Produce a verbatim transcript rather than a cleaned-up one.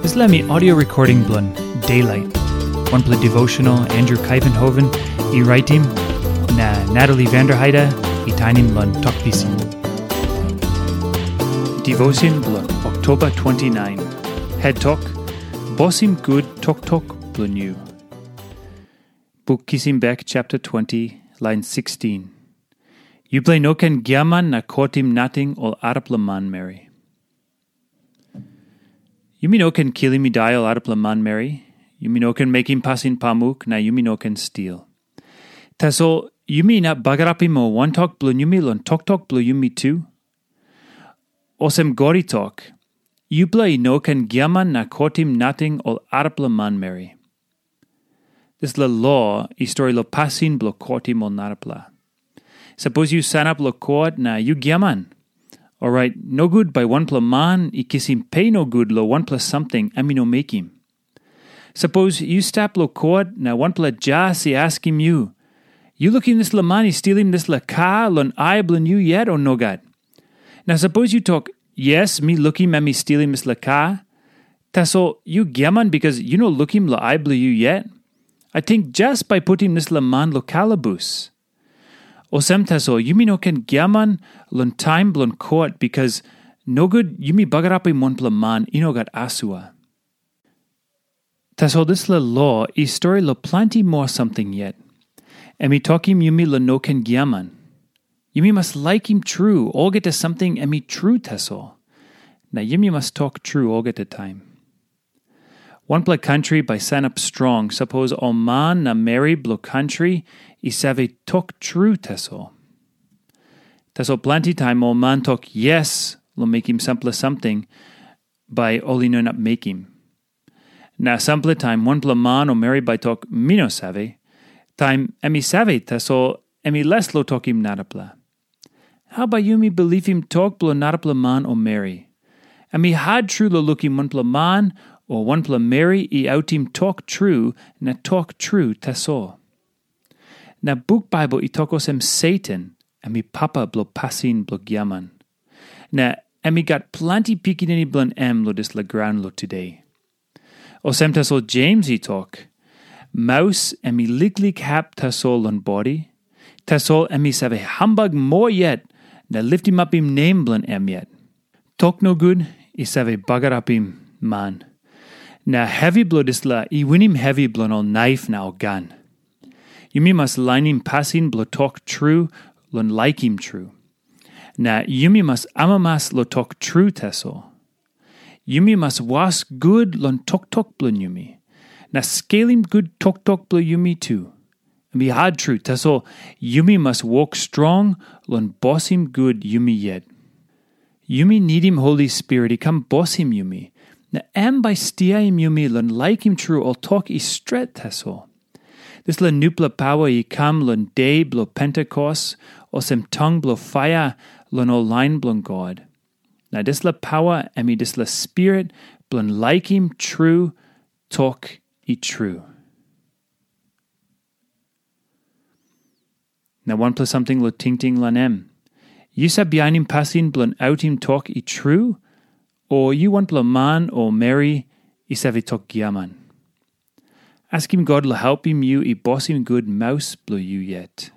Dispela mi audio recording bilong Daylight, wanpela devotional Andrew Kaivenhoven i raitim, na Natalie Vanderheide i tainim long Tok Pisin. Devotion bilong Oktoba twenty-nine. Head tok, Bosim gut toktok bilong yu. Buk Kisim Bek chapter twenty, lain sixteen. Yupela i no ken giaman na kotim nating ol arapela manmeri. Yumi no ken kilim i dai ol arapela manmeri. Yumi no ken mekim pasin pamuk, na yumi no ken stil. Tasol yumi inap bagarapim ol wantok bilong yumi long toktok bilong yumi tu. Olsem God i tok, yupela i no ken giaman na kotim nating ol arapela manmeri. Dispela lo i stori long pasin bilong kotim ol narapela. Sapos yu sanap long kot na yu giaman, orait nogut bai wanpela man i kisim pe nogut long wanpela samting em i no mekim. Sapos yu stap long kot na wanpela jas i askim yu, "Yu lukim dispela man i stilim dispela kar long ai bilong yu yet, o nogat?" Na sapos yu tok, "Yes, mi lukim em i stilim dispela kar," tasol yu giaman bikas yu no lukim long ai bilong yu yet, ating jas bai putim dispela man long kalabus. Olsem tasol yumi no ken giaman long taim bilong kot, bikas nogut yumi bagarapim wanpela man i no gat asua. Tasol dispela lo i stori long planti moa samting yet. Em i tokim yumi long no ken giaman. Yumi mas laikim tru olgeta samting em i tru tasol. Na yumi mas tok tru olgeta taim. Wanpela kantri bai sanap strong sapos ol man na meri bilong kantri i save tok tru tasol. Tasol planti taim ol man tok yes long mekim sampela samting, bai ol i no inap mekim. Na sampela taim wanpela man o meri bai tok, "Mi no save," taim em i save, tasol em i les long tokim narapela. Hau bai yumi bilipim tok bilong narapela man o meri? Em i hat tru long lukim wanpela man o wanpela meri i autim tok tru na tok tru tasol. Na buk Baibel i tok olsem Satan em i papa bilong pasin bilong giaman. Na em i gat planti pikinini bilong em long dispela graun long tude. Olsem tasol Jems i tok, maus em i liklik hap tasol long bodi, tasol em i save hambak moa yet na litimapim nem bilong em yet. Tok nogut i save bagarapim man, na hevi bilong dispela i winim hevi bilong ol naif na ol gan. Yumi mas lainim pasin bilong tok tru long laikim tru. Na yumi mas amamas long tok tru tasol. Yumi mas was gut long toktok bilong yumi, na skelim gut toktok bilong yumi tu. Em i hat tru, tasol yumi mas wok strong long bosim gut yumi yet. Yumi nidim Holi Spirit i kam bosim yumi, na em bai stiaim yumi long laikim tru ol tok i stret tasol. Dispela nupela paua i kam long de bilong Pentekos, olsem tong bilong paia long ol lain bilong God. Na dispela paua em i dispela spirit bilong laikim tru tok i tru. Na wanpela samting long tingting long em. Yu save bihainim pasin bilong autim tok i tru, o yu wanpela man o meri i save tok giaman? Askim God long helpim yu i bosim gut maus bilong yu yet.